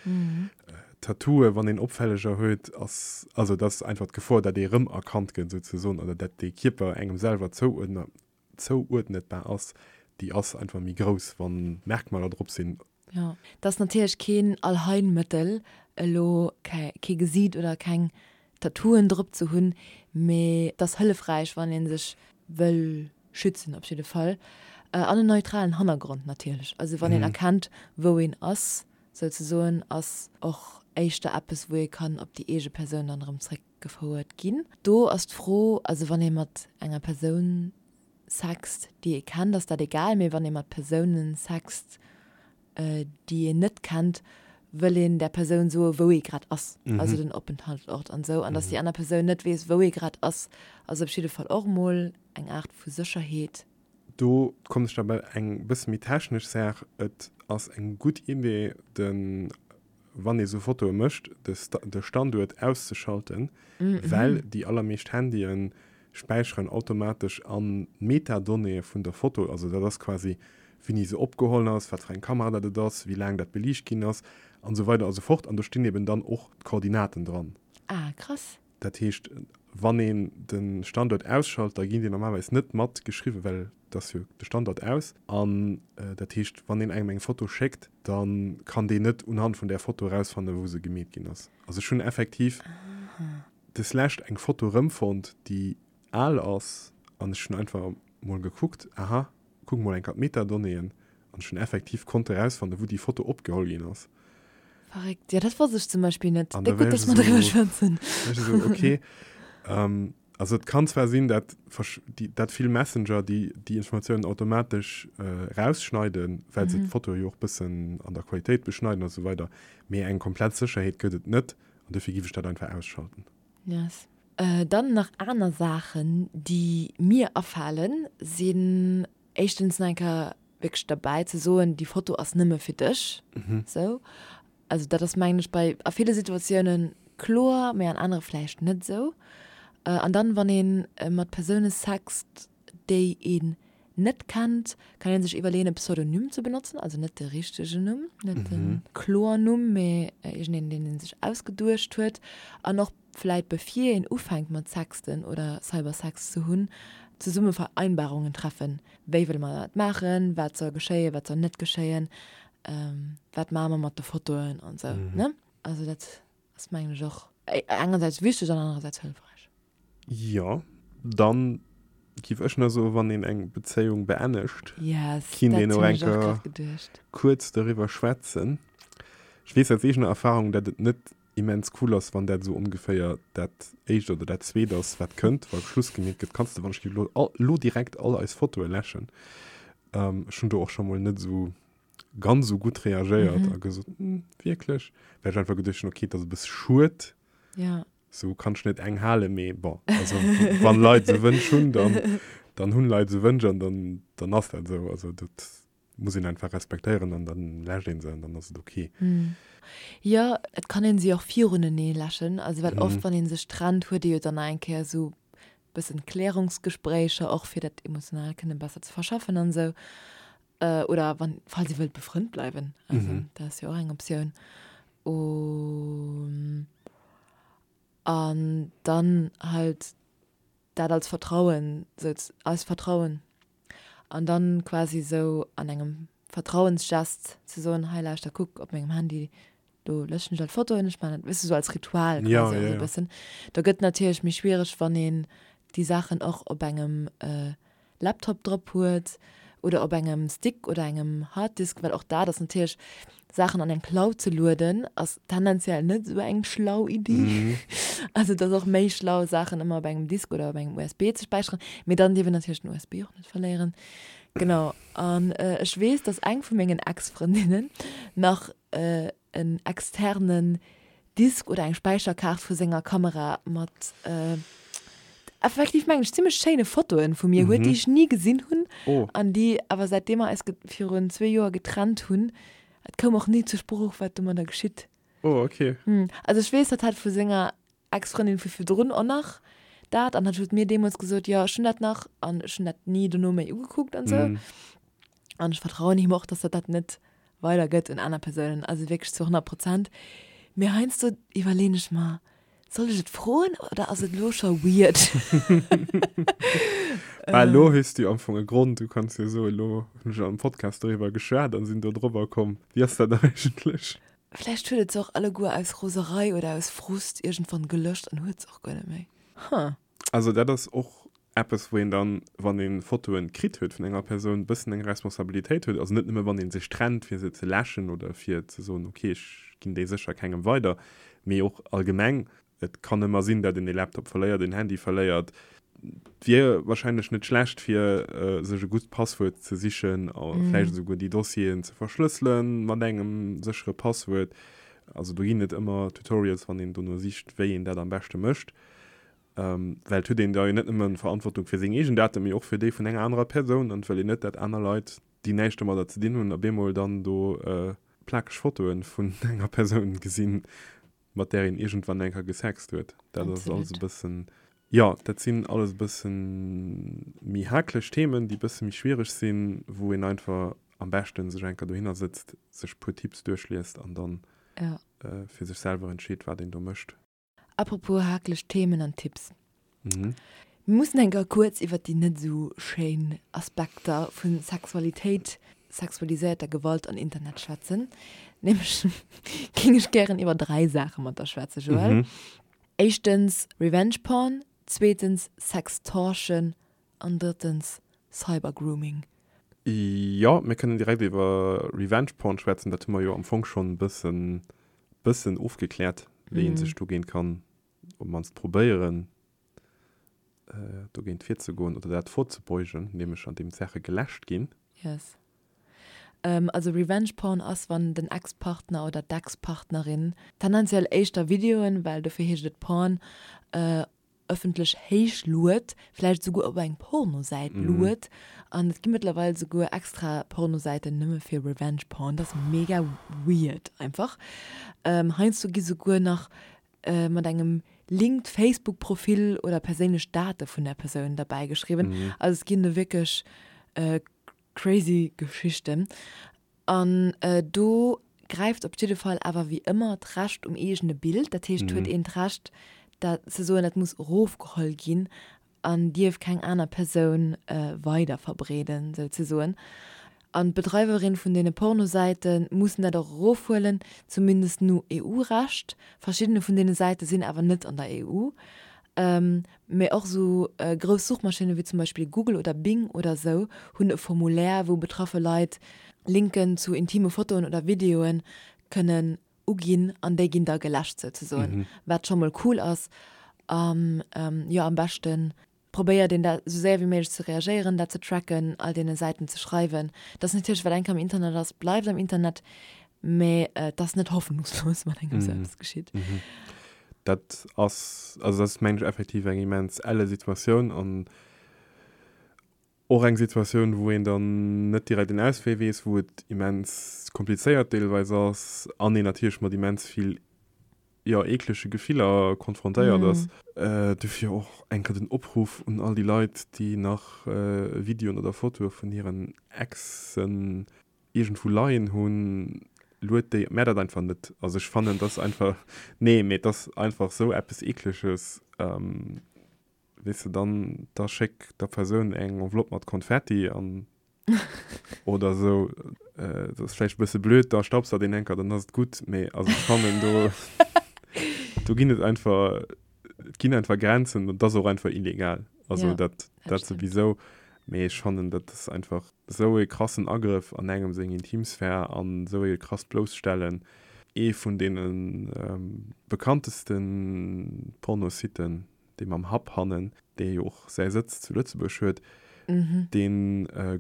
Tattooe wann een opfälleger huet, ass, also et ass einfach d'Gefor, dat ee rëmerkannt gëtt souzesoen oder dat dee Kierper engem selwer zouuerdnetbar ass, déi ass einfach méi grouss, wann Merkmaler drop sinn. Jo, et ass natierlech keen Allheilmëttel, elo kee Gesiit oder keng Tattooen drop ze hunn, mee et ass hëllefräich, wann ee sech wëll schützen op jidde Fall. An en neutralen Hannergrond natierlech, also wann een erkennt, wou een ass souzesoen, ass och éischter eppes, wou ee kann op déi eege Persoun dann erëm zréckgefouert ginn. Do ass d'Fro, also wann ee mat enger Persoun sext, déi ee kennt, ass dat egal, mee wann ee mat Persounen sext, déi een net kennt, wëll een där Persoun soe wou ee grad ass, also den Openthaltsort an esou, an datt déi aner Persoun net weess, wou ee grad ass, ass op jidde Fall och emol eng Aart vu Sécherheet. Do kommen ech da bei eng bësse méi technesch Saach, Et ass eng gutt Idee, de wann ee sou Fotoe mécht, de Standuert auszeschalten, well déi allermeescht Handye späicheren automatesch an d'Metadonnéeë vun der Foto, also dat ass quasi wéini se opgeholl ass, wat fir eng Kamera dat et ass, wéi laang dat beliicht ginn ass an esou weider a sou fort. An do stinn eben dann och d'Koordinaten dran. Ah, krass. Dat heescht, wann een de Standuert ausschalt, da ginn déi normalerweis net mat geschriwwen, well et ass jo de Standort aus. An dat heescht, wann een engem eng Foto schéckt, da kann deen net unhand vun där Foto erausfannen, wou se gemeet ginn ass. Also ech hunn effektiv deslescht eng Foto erëmfonnt, déi al ass, an ech hunn einfach mol gekuckt, aha, kuck mol eng Kéier d'Metadonnéeën, an ech hunn effektiv konnte erausfannen, wou déi Foto opgeholl ginn ass. Verréckt, jo dat wosst ech zum Beispill net. An da Déck gutt, dass mer driwwer schwätzen. Ech esou, okay. Also et kann zwar sinn, dat dat vill Messenger déi déi Informatiounen automatesch erausschneiden, well se d'Foto jo och bëssen an der Qualitéit beschneiden a sou weider, mee eng komplett Sécherheet gëtt et net an dofir giff ech dat einfach ausschalten. Yes. Dann nach aner Saachen, déi mir afalen, sinn éischtens nach eng Kéier wierklech derbäi ze soen, déi Foto ass nëmme fir dech, sou. Also dat ass mengen ech bei a ville Situatiounen kloer, mee an anere vläicht net esou. An dann, wann ee mat Persoune sext, déi een net kennt, kann ee sech iwwerleeën e Pseudonym ze benotzen, also net de richtegen Numm, net de Kloernumm, mee iergendeen, deen ee sech ausgeduecht huet. An och vläit bevir een ufänkt mat sexten oder Cybersex ze hunn, zesumme Vereinbarungen treffen, wéi wëlle mer dat maachen, wat soll geschéien, wat soll net geschéien, wat maache mer mat de Fotoen an esou, ne? Also dat ass mengen ech och engersäits wichteg an anerersäits hëllefräich. Jo, dann giff ech nach soen, wann een eng Bezéiung beennegt, Yes, kinnt dat een och hunn eng ech och Kéier grad geduecht. kuerz doriwwer schwätzen. Ech weess aus eegener Erfahrung, dat et net immens cool ass, wann dat esou ongeféier dat éischt oder dat zweet ass, wat kënnt, wa Schluss gemeet gëtt, kanns de wann ech lo, lo direkt all eis Fotoe läschen. Ech hunn do och scho mol net esou ganz esou gutt reagéiert a gesot, hm, wierklech? Well ech einfach geduecht hunn, okay, et ass e bësse schued, Ja. sou kann ech net eng halen, mee bon, also wann Leit esou Wënsch hunn, dann. Dann hunn Leit esou Wënsch an dann, dann ass dat esou. Also dat muss een einfach respektéieren an dann läscht een se an dann ass et ok. Jo, et kann een se och virunenee läschen. Also well oft wann een sech trennt, huet ee jo dann nach eng Kéier esou bëssen Klärungsgespréicher och fir dat emotional kënne besser ze verschaffen an esou. Oder wann, falls ee wëllt befrënnt bleiwen, also dat ass jo och eng Optioun. An dann halt dat als Vertrauen, sou als Vertrauen an dann quasi sou an engem Vertrauensgest ze soen, hei lauschter kuck op mengem Handy, do löschen ech all d'Fotoen, ech man dat, weess de, sou als Ritual quasi och sou e bëssen. Da gëtt natierlech méi schwiereg, wann een déi Saachen och op engem Laptop drop huet oder op engem Stick oder engem Harddisk, well och dat ass natierlech, Saachen an eng Cloud ze lueden ass tendenziell net esou eng schlau Iddi. Also et ass och méi schlau Saachen ëmmer op engem Disk oder op engem USB ze späicheren, mee dann dierf een natierlech den USB och net verléieren. Genau, an ech weess, dass eng vu mengen Ex-Frëndinnen nach en externen Disk oder eng Späicherkaart vu senger Kamera mat effektiv mengen ech zimmlech schéine Fotoen vu mir huet, déi ech ni gesinn hunn an déi awer säitdeem mer eis virun zwee Joer getrennt hunn, et koum och ni zur Sprooch wat domadder geschitt. Oh okay. Also ech weess, hatt hat vu senger Ex-Frëndin vu virdrun och nach dat an hatt huet mir deemools gesot, jo ech hunn dat nach an ech hunn dat ni dono méi ugekuckt an esou. An ech vertrauen him och, dass hatt dat net weider gëtt un aner Persounen, also wierklech zu 100 Prozent. Mee heiansdo iwwerleen ech mer, soll ech et froen oder ass et elo scho weird? Bah, elo hues du am Fong e Grond, du kanns jo soen, elo hunn ech am Podcast doriwwer geschwat an sinn do drobber komm. Wéi ass dat eigentlech? Vläicht huet et se och alleguer aus Roserei oder aus Frust iergendwann gelöscht an huet se och guer net méi. Huh. Also dat ass och eppes wou een dann, wann ee Fotoen kritt huet vun enger Persoun, bëssen eng Responsabilitéit huet. Also net nëmme wann ee sech trennt fir se ze läschen oder fir ze soen, ok ech ginn déi sécher kengem weider, mee och allgemeng. Et kann ëmmer sinn, dat een ee Laptop verléiert, een Handy verléiert. Et wier wahrscheinlech net schlecht fir sech e gutt Passwuert ze sichen a vläicht esouguer déi Dossieren ze verschlësselen mat engem séchere Passwuert. Also do ginn et ëmmer Tutorials, wann een dono sicht, wéi een dat am beschte mécht. Well et huet een da jo net nëmme Verantwortung fir seng eegen Daten, mee och fir déi vun enger anerer Persoun. An et wëll een net, dat aner Leit, déi näischt domadder ze dinn hunn, op eemol dann do plakeg Fotoe vun enger Persoun gesinn, mat där een iergendwann eng Kéier gesext huet. Dat ass alles e bëssen, jo, dat sinn alles e bësse méi haklech Themen, déi e bësse méi schwiereg sinn, wou een einfach am beschte sech eng Kéier dohinner sëtzt, sech e puer Tipps duerchliest an dann fir sech selwer entscheet, wat een do mécht. Apropos hakeleg Themen an Tipps. Mir mussen eng Kéier kuerz iwwer déi net esou schéin Aspekter vu Sexualitéit, sexualiséierter Gewalt an Internet schwätzen. Nämlech géing ech gären iwwer 3 Saache mat der schwätzen, Joël. Éischtens Revenge Porn, zweetens Sextortion an drëttens Cybergrooming. Jo, mir kënnen direkt iwwer Revenge Porn schwätzen. Dat hu mer jo am Fong schonn e bëssen bëssen ofgekläert, wéi ee sech dogéint kann, op d'mannst probéieren, dogéint virzegoen oder dat vorzebeugen, nämlech andeem d'Saache geläscht ginn. Yes. Also Revenge Porn ass, wann den Ex-Partner oder d'Ex-Partnerin, tendenziell éischter Videoen, well dofir heescht et Porn, ëffentlech héich lued, vläicht esouguer op eng Pornosäit lued. An et gi mëttlerweil esouguer extra Pornosäiten nëmme fir Revenge Porn. Dat ass mega weird einfach. Heiansdo gi souguer nach mat engem Link d'Facebook-Profil oder perséinlech Date vun der Persoun derbäi geschriwwen. Also et ginn do wierklech crazy Geschichten. An do gräift op jidde Fall awer wéi ëmmer d'Recht um eegene Bild. Dat heescht, huet een d'Recht, dat ze soen, dat muss erofgeholl ginn an dierf keng aner Persoun weiderverbreeden, souzesoen. An d'Bedreiwerin vun deene Pornosäite mussen dat och erofhuelen, zumindest no EU-Recht. Verschiddene vun deene Säite sinn awer net an der EU. Mee och esou grouss Suchmaschinne wéi zum Beispill Google oder Bing oder esou hunn e Formulaire, wou betraffe Leit Linken zu intime Fotoen oder Videoe kënnen uginn an déi ginn da geläscht souzesoen, wat scho mol cool ass. An jo, am beschte probéiert een da esou séier wéi méiglech ze reagéieren, dat ze tracken, all deene Säiten ze schreiwen. Dat ass natierlech, wat eng Kéier am Internet ass, bleift am Internet, mee et ass net hoffnungslos, wann engem esou eppes geschitt. Dat ass, also dat ass mengen ech effektiv eng immens elle Situatioun an. Och eng Situatioun, wou een dann net direkt en Auswee weess, wou et immens komplizéiert deelweis ass an een natierlech mat immens vill, jo, eeklege Gefiller konfrontéiert ass. Dofir och eng Kéier den Opruff un all déi Leit, déi nach Videoen oder Fotoe vun hiren Exen iergendwou leien hunn, luet déi, mä dat einfach net. Also ech fannen, dass einfach, nee, mee et ass einfach esou eppes Eekleges. Weess de, dann da schéck der Persoun eng Enveloppe mat Konfetti an oder esou. Dat ass vläicht e bësse blöd, da staubsaugt een enker, dann ass et gutt. Mee also ech fannen do, do ginn et einfach, et ginn einfach Grenzen an et ass och einfach illegal. Also ja, dat, dat souwisou. Mee ech fannen, dat ass einfach esou e krassen Agrëff an engem seng Intimsphär an esou e krasst Blousstellen. Ee vun deene bekannteste Pornositen, dee mam Hub hannen, dee jo och säi Sëtz zu Lëtzebuerg huet, dee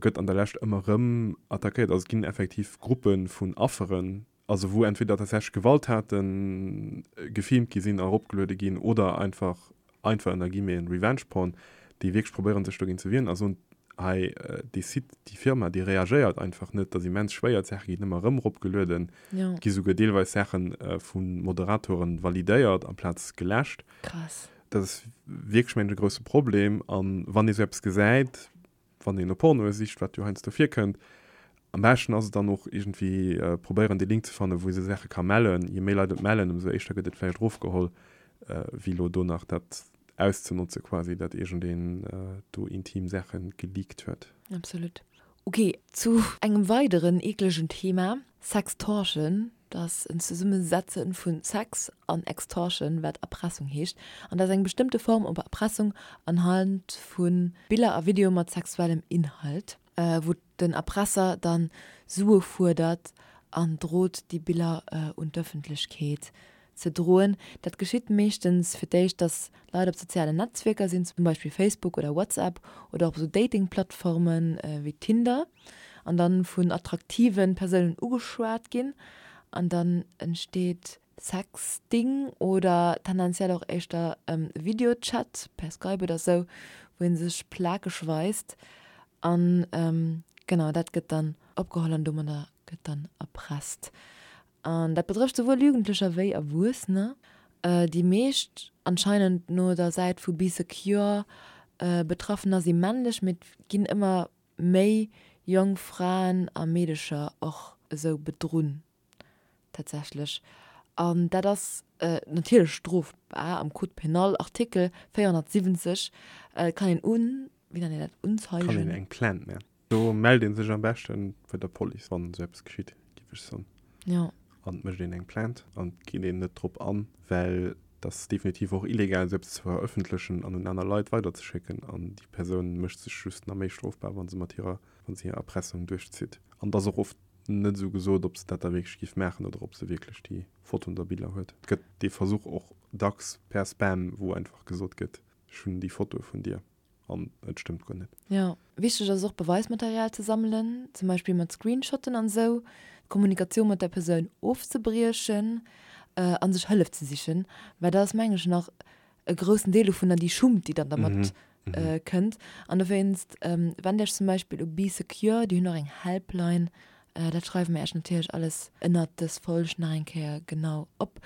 gëtt an der Lescht ëmmer erëm attackéiert. Also et ginn effektiv Gruppe vun Afferen, also wou entweder tatsächlech Gewalttaten gefilmt gi sinn a eropgeluede ginn oder einfach, einfach ënner Guillemeten, Revenge Porn, déi wierklech probéieren sech dogéint ze wieren a soen, hei dee Site, déi Firma, déi reagéiert einfach net, dat ass immens schwéier, d'Saache ginn ëmmer erëm eropgelueden, et gi souguer deelweis Saache vu Moderatoren validéiert amplaz geläscht. Krass. Dat ass wierklech, mengen ech, e grousse Problem. A wann ee sou eppes gesäit, wann een no Pornoe sicht, wat jo heiansdo virkënnt, am beschten ass et dann och iergendwéi probéieren, dee Link ze fannen, wou ee sou Saache ka mellen. Je méi Leit et mellen, ëmsou éischter gëtt et vläicht erofgeholl, wéi elo do nach dat auszenotze quasi, datt iergendeen do intim Saache geleakt huet. Absolut. Ok, zu engem weideren eeklegen Thema, Sextortion. Dat ass en Zesummesetze vu Sex an Extortion, wat Erpressung heescht. An dat ass eng bestëmmte Form op Erpressung anhand vu Biller a Videoe mat sexuellem Inhalt, wou den Erpresser dann Sue fuerdert an drot, déi Biller un d'Ëffentlechkeet ze droen. Dat geschitt meeschtens fir d'éischt, dass Leit op sozialen Netzwierker sinn, zum Beispill Facebook oder WhatsApp oder och op sou Dating-Plattforme wéi Tinder, an dann vun attraktive Persounen ugeschwat ginn an dann entsteet Sexting oder tendenziell och éischter Videochat per Skype oder sou, wou ee sech plakeg weist an genau dat gëtt dann opgeholl an domadder gëtt dann erpresst. An dat betrëfft souwuel Jugendlecher wéi Erwuessener. Déi meescht, anscheinend no der Säit vu Bee Secure, Betraffener si männlech, mee et ginn ëmmer méi jonk Fraen a Meedecher och esou bedrunn tatsächlech. An dat ass natierlech strofbar am Code pénal, Artikel 470. Et kann een un, wéi nennt een dat, unzeigen? Kann een eng Plainte maachen. Do mellt een sech am beschten bei der Police, wann esou eppes geschitt, géif ech soen. Jo. An et mécht een eng Plainte an et geet een net drop an, well et ass definitiv och illegal, esou eppes ze verëffentlechen an un aner Leit weiderzeschécken. An déi Persoun mécht sech just nach méi strofbar, wa se mat hirer, wa se hir Erpressung duerchzitt. An et ass och oft net esou gesot, ob se dat da wierklech géif maachen oder ob se wierklech déi Fotoen oder Biller huet. Et gëtt dee Versuch och dacks per Spam, wou einfach gesot gëtt, ech hunn déi Fotoe vun dir. An et stëmmt guer net. Jo, wichteg ass och Beweismaterial ze sammelen, zum Beispill mat Screenshotten an esou, d'Kommunikatioun mat der Persoun ofzebriechen a sech Hëllef ze sichen, well dat ass mengen ech nach e groussen Deel dovunner, déi Schummt déi dann dermat kënnt. An dowéinst wennt Iech zum Beispill u Bee Secure, déi hunn och eng Helpline, dat schreiwe mir Iech natierlech alles ënnert dës Folg nach eng Kéier genau op.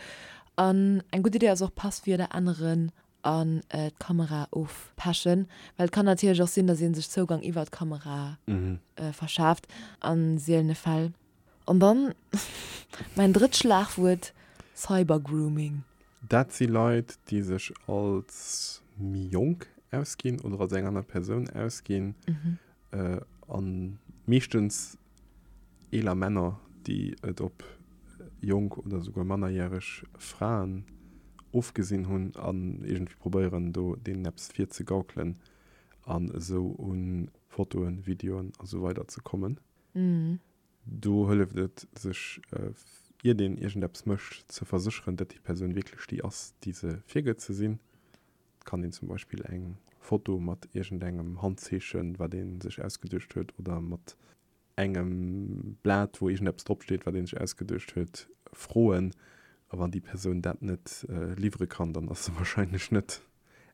An eng gutt Idee ass och Passwierder änneren an d'Kamera ofpechen, well et kann natierlech och sinn, datt ee sech Zougang iwwer d'Kamera verschaaft a sielene Fäll. An dann mäin drëtt Schlagwuert, Cybergrooming. Dat si Leit, déi sech als méi jonk ausginn oder als eng aner Persoun ausginn a meeschtens eeler Männer, déi et op jonk oder souguer mannerjäreg Fraen ofgesinn hunn an iergendwéi probéieren, do deenen eppes virzegaukelen an esou u Fotoen, Videoen a sou weider ze kommen. Do hëlleft et, sech, iert een iergendeppes mécht, ze versécheren, datt déi Persoun wierklech déi ass, déi se virgëtt ze sinn. Et kann een zum Beispill eng Foto mat iergendengem Handzeechen, wat ee sech ausgeduecht huet, oder mat engem Blat, wou iergendeppes dropsteet, wat ee sech ausgeduecht huet, froen. A wann déi Persoun dat net liwwere kann, dann ass se warscheinlech net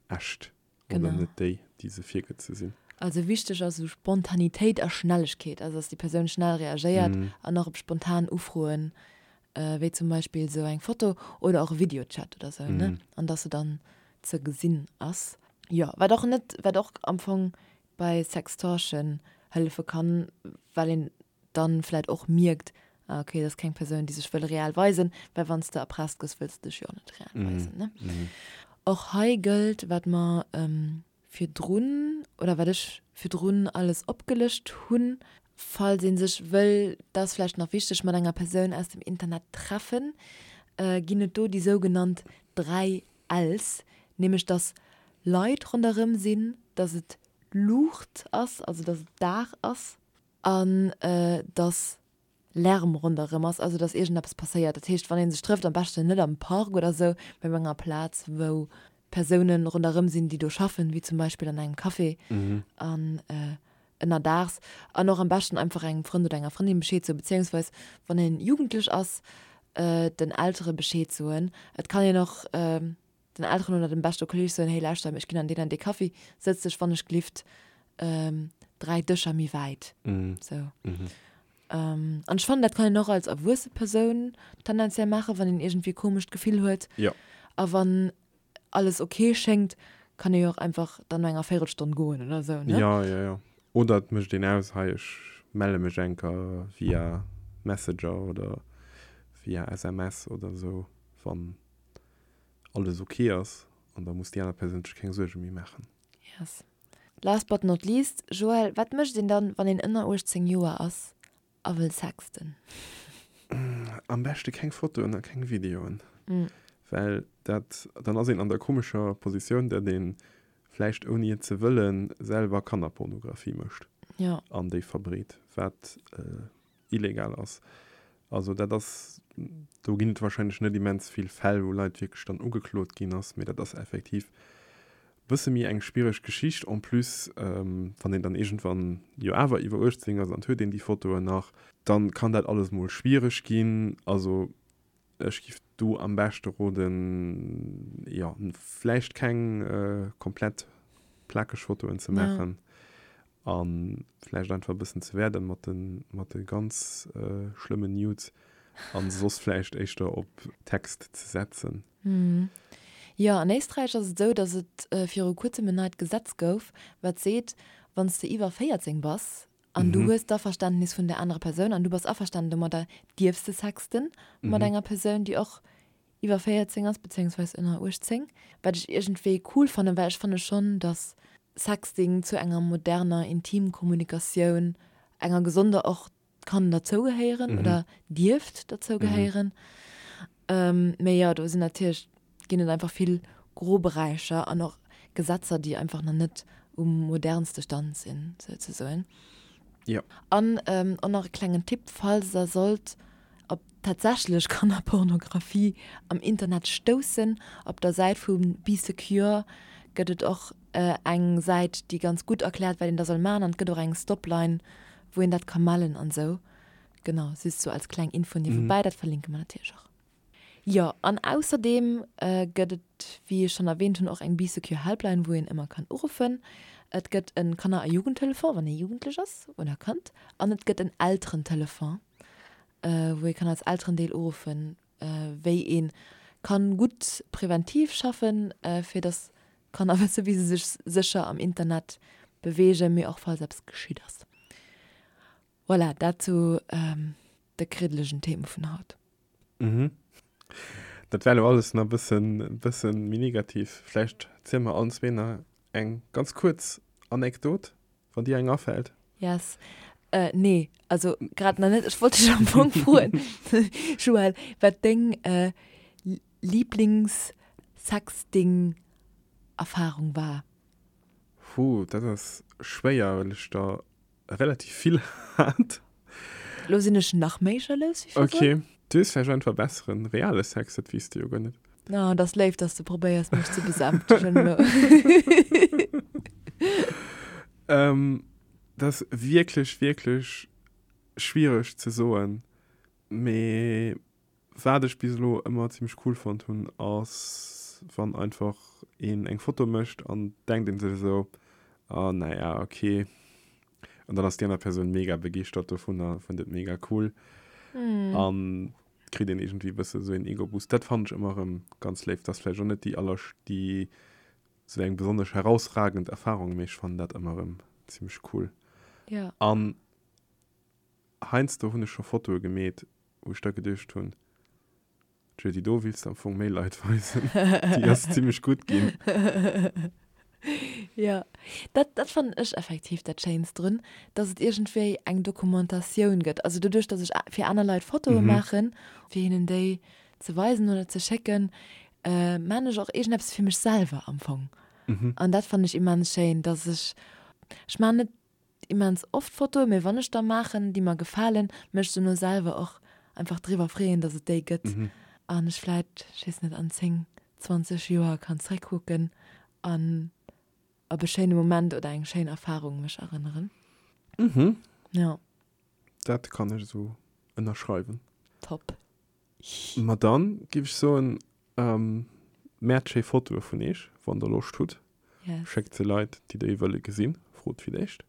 echt oder net déi, déi se virgëtt ze sinn. Also wichteg ass esou Spontanitéit a Schnellegkeet, also dass déi Persoun schnell reagéiert an och op spontan Ufroen, wéi zum Beispill esou eng Foto oder och e Videochat oder esou, ne, an dass se dann ze gesinn ass. Jo, wat och net, wat och am Fong bei Sextortion hëllefe kann, well een dann vläit och mierkt, ah okay, dat ass keng Persoun, déi sech wëll real weisen, well wann s de erpresst gëss, wëlls de dech jo och net real weisen, ne. Och hei gëllt, wat mer virdrun, oder wat ech virdrun alles opgelëscht hunn, falls ee sech wëll, dat ass vläicht nach wichteg, mat enger Persoun aus dem Internet treffen, ginn et do déi sougenannt 3 Ls, nämlech dass Leit ronderëm sinn, dass et Luucht ass, also dass et Dag ass, an dass Lärm ronderëm ass, also dass iergendeppes passéiert. Dat heescht, wann ee sech trëfft, am beschten net am Park oder esou, mä op enger Plaz, wou Persoune ronderëm sinn, déi do schaffen, wéi zum Beispill an engem Café an ënnerdaags. An och am beschten einfach engem Frënd oder enger Frëndin Bescheed soen, beziéungsweis wann een jugendlech ass, den Eltere Bescheed soen. Et kann een och den Elteren oder dem beschte Kolleeg soen, hey lauschter, ech ginn an deen an dee Café, sëtz dech wann ech glift 3 Dëscher méi wäit. Sou. An ech fannen, dat kann een och als erwuesse Persoun tendenziell maachen, wann een iergendwéi e komescht Gefill huet. Jo. A wann alles ok schéngt, kann ee jo och einfach dann no enger Véirelstonn goen oder sou, ne? Jo, jo, jo. Oder et mécht een aus, hei ech melle mech enker via Messenger oder via SMS oder sou, wann alles ok ass an da muss déi aner Persoun sech keng Suerge méi maachen. Yes. Last but not least, Joël, wat mécht een dann, wann een ënner 18 Joer ass a wëll sexten? Am beschte keng Fotoen a keng Videoen, well dat, dann ass een an der komescher Positioun, datt ee vläicht ouni et ze wëllen selwer Kannerpornografie mécht an déi verbreet, wat illegal ass. Also dat ass, do ginn et wahrscheinlech net immens vill Fäll, wou Leit wierklech dann ugeklot ginn ass, mee dat ass effektiv e bësse méi eng schwiereg Geschicht. En plus, wann een dann iergendwann jo awer iwwer 18 ass an et huet een déi Fotoen nach, dann kann dat alles mol schwiereg ginn. Also Ech giff do am beschte roden, jo, vläicht keng komplett plakeg Fotoen ze maachen an vläicht einfach e bëssen ze wäerden mat de mat de ganz schlëmmen Nudes an soss vläicht éischter op Text ze setzen. Jo, an Éisträich ass et esou, datt et viru kuerzem en neit Gesetz gouf, wat seet, wann s de iwwer 14 bass An du hues d'Averständnis vun der anerer Persoun an du bass averstanen domadder, dierfs de sexten mat enger Persoun, déi och iwwer 14 ass, bezéiungsweis ënner 18. Wat ech iergendwéi cool fannen, well ech fanne schonn, dass Sexting zu enger moderner Intimkommunikatioun, enger gesonder och, kann derzougehéieren oder dierft derzougehéieren. Mee jo, do sinn natierlech ginn et einfach vill Groberäicher an och Gesetzer, déi einfach nach net um modernste Stand sinn, souzesoen. Jo. An och nach e klengen Tipp, falls der sollt op tatsächlech Kannerpornografie am Internet stoussen, op der Säit vu Bee Secure gëtt et och eng Säit, déi ganz gutt erkläert, wat een da soll maachen an et gëtt och eng Stopline, wou een dat ka mellen an esou. Genau, just sou als kleng Info niewebäi, dat verlinke mer natierlech och. Jo, an ausserdeem gëtt et, wéi ech schonn erwähnt hunn, och eng Bee Secure Helpline, wou een ëmmer kann uruffen. Et gëtt e Kanner a Jugendtelefon, wann ee Jugendlech ass oder Kand. An et gëtt en Elterentelefon, wou ee kann als Elterendeel uruffen, wéi ee kann gutt präventiv schaffen, fir dass d'Kanner wësse wéi se sech sécher am Internet beweegen, mee och falls eppes geschitt ass. Voilà, dat zu de kriddelegen Theme vun haut. Mhm. Dat war elo alles nach e bëssen, bëssen méi negativ. Vläicht ziele mer allen zwee nach eng ganz kuerz Anekdot, wann dir eng afält. Yes. Äh, nee, also grad nach net. Ech wollt dech am Fong froen, Joël, wat deng äh, Lieblings-Sexting-Erfarung war. Puh, dat ass schwéier, well ech der relativ vill hat. Lo sinn ech nach méi jalous wéi virdrun. Ok, du hues vläicht einfach besseren reale Sex, dat weess de jo guer net. Oh, dat ass léif, dass de probéiers mech ze besänftegen elo. Dat ass wierklech, wierklech schwiereg ze soen, mee Wat ech bis elo ëmmer zimmlech cool fonnt hunn ass wann einfach een eng Foto mécht an denkt een sech esou. Oh naja, okay. An dann ass déi aner Persoun mega begeeschtert dovunner, fënnt et mega cool. Mm. An kritt een iergendwéi e bësse sou een Ego-Boost. Dat fannen ech ëmmer erëm ganz léif. Dat ass vläicht och net déi aller, déi sou eng besonnesch herausragend Erfahrung, mee ech fannen dat ëmmer erëm zimmlech cool. Ja. An heiansdo hunn ech scho Fotoe gemeet, wou ech da geduecht hunn, Tjo, déi do wills de am Fong méi Leit weisen. Déi ass zimmlech gutt ginn. Jo, dat, dat fannen ech effektiv dat Schéinst drun, dass et iergendwéi eng Dokumentatioun gëtt. Also doduerch, dass ech fir aner Leit Fotoe maachen, fir hinnen déi ze weisen oder ze schécken, maan ech och iergendeppes fir mech selwer am Fong. An dat fannen ech immens schéin, dass ech, ech maan net immens oft Fotoen, mee wann ech der maachen, déi mer gefalen, mech dono selwer och einfach driwwer freeën, dass et déi gëtt an ech vläit, ech weess net, an 10, 20 Joer kann zréckkucken an op e schéine Moment oder eng schéin Erfarung mech erënneren. Mhm. Jo. Dat kann ech esou ënnerschreiwen. Top. Ma dann giff ech soen, Mäert schéi Fotoe vun eech, wann der Loscht hutt. Yes. Schéckt se Leit, déi déi wëlle gesinn. Frot fir d'éischt.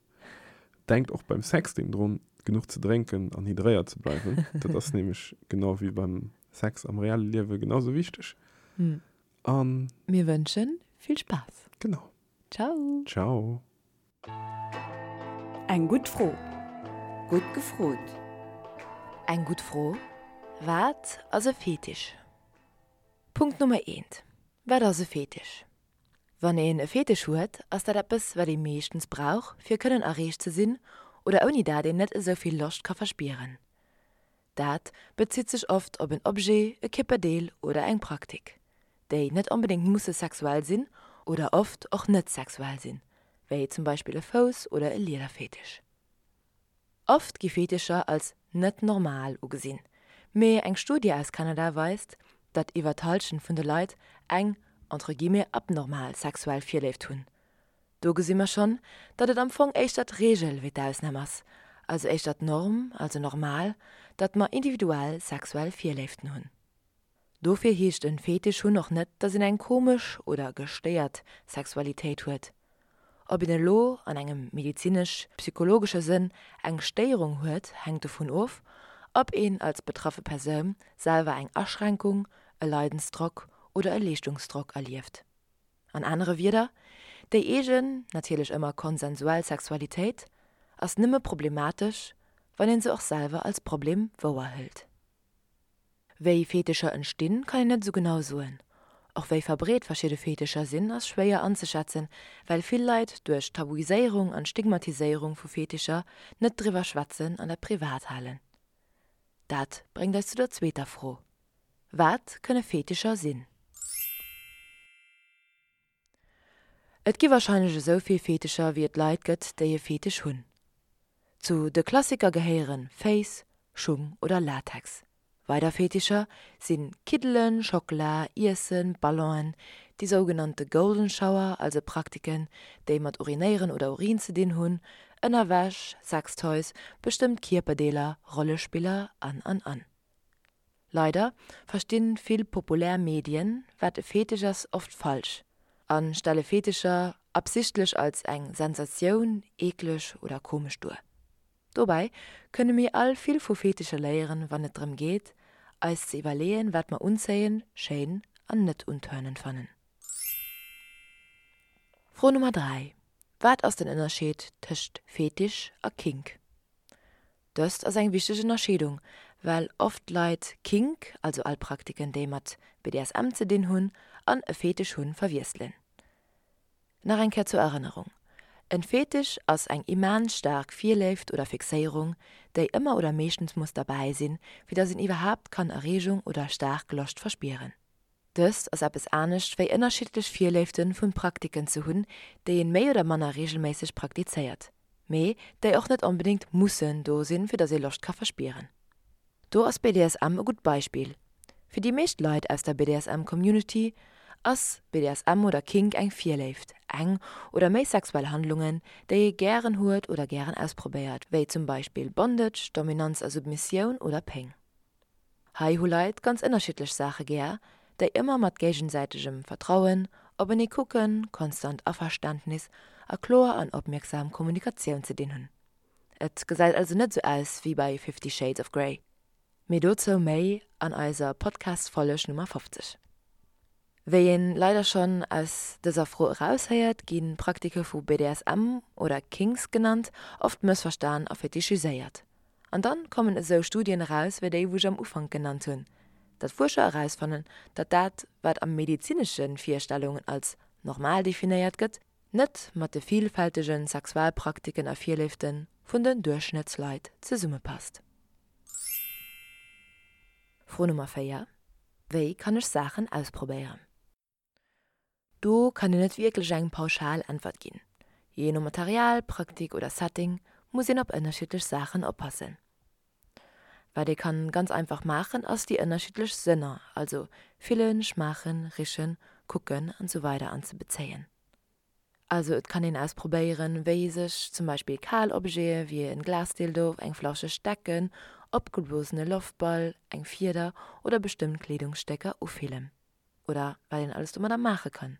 Denkt och beim Sexting drun, genuch ze drénken an hydréiert ze bleiwen. Dat ass nämlech genau wéi beim Sex am reelle Liewe genau sou wichteg. An. Mir wënschen vill Spaass. Genau. Ciao. Ciao. Eng gutt Fro. Gutt gefrot. Eng gutt Fro, Wat ass e Fetisch? Punkt Nummer eent, Wat ass e Fetisch? Wann een e Fetisch huet, ass dat eppes, wat ee meeschtens brauch, fir kënnen erreecht ze sinn oder ouni dat een net esou vill Loscht ka verspieren. Dat bezitt sech oft op en Objet, e Kierperdeel oder eng Praktik, déi net onbedéngt musse sexuell sinn oder oft och net sexuell sinn, wéi zum Beispill e Fouss oder e Liederfetisch. Oft gi Fetischer als net normal ugesinn, mee eng Studie aus Kanada weist, datt iwwer d'Hallschent vun de Leit eng entre guillemets abnormal sexuell Virléift hunn. Do gesi mer schonn, datt et am Fong éischter d'Reegel wéi d'Ausnam ass, also éischter d'Norm, also normal, datt mer individuell sexuell Virléiften hunn. Dofir heescht en Fetisch hunn och net, datt een eng komesch oder gestéiert Sexualitéit huet. Ob een elo an engem medizinesch-psychologesche Sënn eng Stéierung huet, hänkt dovun of, ob een als betraffe Persoun selwer eng Aschränkung, e Leidensdrock oder e Leeschtungsdrock erlieft. An anere Wieder, déi eegen, natierlech ëmmer konsensuell Sexualitéit ass nëmme problematesch, wann een se och selwer als Problem wouerhëlt. Wéi Fetischer entstinn, kann een net esou genau soen. Och wéi verbreet verschidde Fetischer sinn, ass schwéier anzeschätzen, well vill Leit duerch d'Tabuiséierung an d'Stigmatiséierung vu Fetischer net driwwer schwätzen an dat privat halen. Dat bréngt eis zu der zweeter Fro, Wat kënne Fetischer sinn? Et gi warscheinlech esou vill Fetischer wéi et Leit gëtt, déi e Fetisch hunn. Zu de Klassiker gehéiere Féiss, Schung oder Latex. Weider Fetischer si Kiddelen, Schockela, Iessen, Ballonen, déi sougenannte Golden Shower, also Praktiken, déi mat Urinéieren oder Urin ze dinn hunn, Ënnerwäsch, Sextoys, bestëmmt Kierperdeeler, Rollespiller an an an. Leider verstinn vill populär Medien, wat e Fetisch ass, oft falsch a stelle Fetischer absichtlech als eng Sensatioun, eekleg oder komesch duer. Dobäi kënne mir all vill vu Fetischer léieren, wann et drëm geet, eis ze iwwerleeën, wat mer unzéien, schéin an net untörnend fannen. Fro Nummer 3, Wat ass den Ënnerscheed tëscht Fetisch a Kink? Dëst ass eng wichteg Ënnerscheedung, well oft Leit Kink, also all Praktiken déi mat BDSM ze dinn hunn, an e Fetisch hunn, verwiesselen. Nach eng Kéier zur Erënnerung, En Fetisch ass eng immens staark Virléift oder Fixéierung, déi ëmmer oder meeschtens muss derbäi sinn, fir dass een iwwerhaapt kann Erreegung oder staark Loscht verspieren. Dëst ass eppes anescht wéi ënnerschiddlech Virléiften vun Praktiken ze hunn, déi een méi oder manner regelméisseg praktizéiert, mee déi och net onbedéngt mussen do sinn, fir dass ee Loscht ka verspieren. Do ass BDSM e gutt Beispill. Fir déi meescht Leit aus der BDSM Community ass BDSM oder Kink eng Virléift, eng oder méi sexuell Handlungen, déi ee gären huet oder gären ausprobéiert, wéi zum Beispill Bondage, Dominanz a Submissioun oder Péng. Hei hu Leit ganz ënnerschiddlech Saache gär, déi ëmmer mat géigesäitegem Vertrauen, openee kucken, konstant Averständnis. a kloer an opmierksam Kommunikatioun ze dinn hunn. Et gesäit also net sou aus wéi bei Fifty Shades of Grey. Mee dozou méi an eiser Podcast-Folleg Nummer 50. Wéi een leider schonn aus dëser Fro eraushéiert, gi Praktike vu BDSM, oder Kinks genannt, oft mëssverstan a fetichiséiert. An dann kommen esou Studien eraus wéi déi wou ech am Ufank genannt hunn, datt Fuerscher erausfannen, datt dat wat a medezinesche Virstellungen als normal definéiert gëtt, net mat de vielfältege Sexualpraktiken a Virléifte vun den Duerchschnëttsleit zesummepasst. Fro Nummer 4, Wéi kann ech Saachen ausprobéieren? Do kann een net wierklech eng pauschal Äntwert ginn. Jee no Material, Praktik oder Setting muss een op ënnerschiddlech Saachen oppassen. Wat ee kann ganz einfach maachen ass déi ënnerschiddlech Sënner, also fillen, schmaachen, richen, kucken an sou weider anzebezéien. Also et kann een ausprobéieren wéi sech zum Beispill kal Objete wéi en Glasdildo, eng flauscheg Decken, opgeblosene Loftball, eng Fieder oder bestëmmt Kleedungsstécker ufillen. Oder wat een alles domadder maache kann.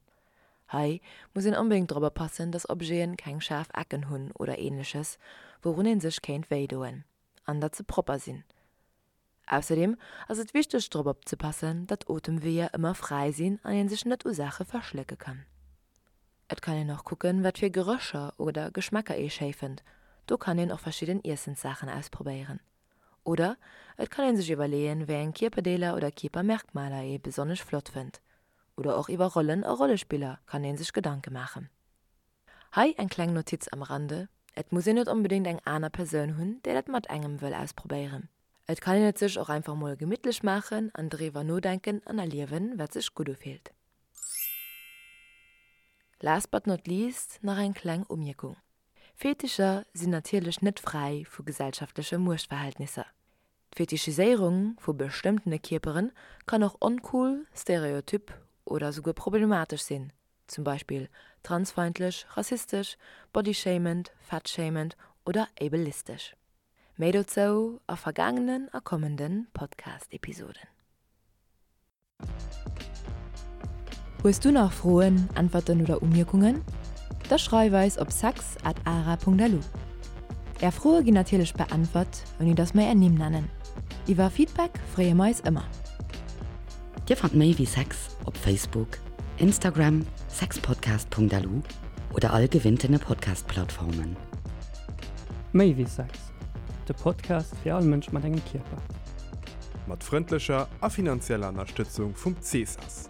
Hei muss een onbedéngt drop oppassen, dass Objeten keng schaarf Ecken hunn oder ähnleches, wourun een sech kéint wéi doen, an datt se propper sinn. Ausserdeem ass et wichteg drop opzepassen, datt Otemweeër ëmmer fräi sinn an een sech net u Saache verschlécke kann. Et kann een och kucken, wat fir Gerécher oder Geschmäcker ee schéi fënnt, do kann een och verschidden Iessenssaachen ausprobéieren. Oder et kann een sech iwwerleeën, wéi eng Kierperdeeler oder Kierpermerkmaler ee besonnesch flott fënnt. Oder och iwwer Rollen a Rollespiller kann ee sech Gedanke maachen. Hei eng kleng Notiz am Rande, Et muss een net onbedéngt eng aner Persoun hunn, déi dat mat engem wëll ausprobéieren. Et kann een et sech och einfach mol gemittlech maachen an driwwer nodenken an erliewen, wat sech gutt ufillt. Last but not least nach eng kleng Umierkung, Fetischer sinn natierlech net fräi vu gesellschaftleche Muechtverhältnisser. D'Fetichiséierung vu bestëmmtene Kierpere kann och oncool, stereotyp oder souguer problematesch sinn, zum Beispill transfeindlech, rassistesch, bodyshamend, fatshamend oder ableistesch. Méi dozou a vergaangenen a kommende Podcast-Episoden. Hues du nach Froen, Äntwerten oder Umierkungen? Da schreif eis op sex at ara.lu. Är Froe ginn natierlech beäntwert, ouni datt mer är Nimm nennen. Iwwer Feedback freeë mer eis ëmmer. Dir fannt méi wéi Sex op Facebook, Instagram, sexpodcast.lu oder all gewinntene Podcast-Plattformen. Méi wéi Sex, de Podcast fir all Mënsch mat engem Kierper. Mat frëndlecher a finanzieller Ënnerstëtzung vum CESAS,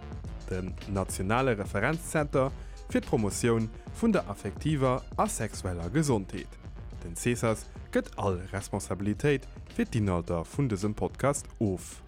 dem nationale Referenzzenter fir d'Promotioun vun der affektiver a sexueller Gesondheet. Den CESAS gëtt all Responsabilitéit fir d'Inhalter vun dësem Podcast of.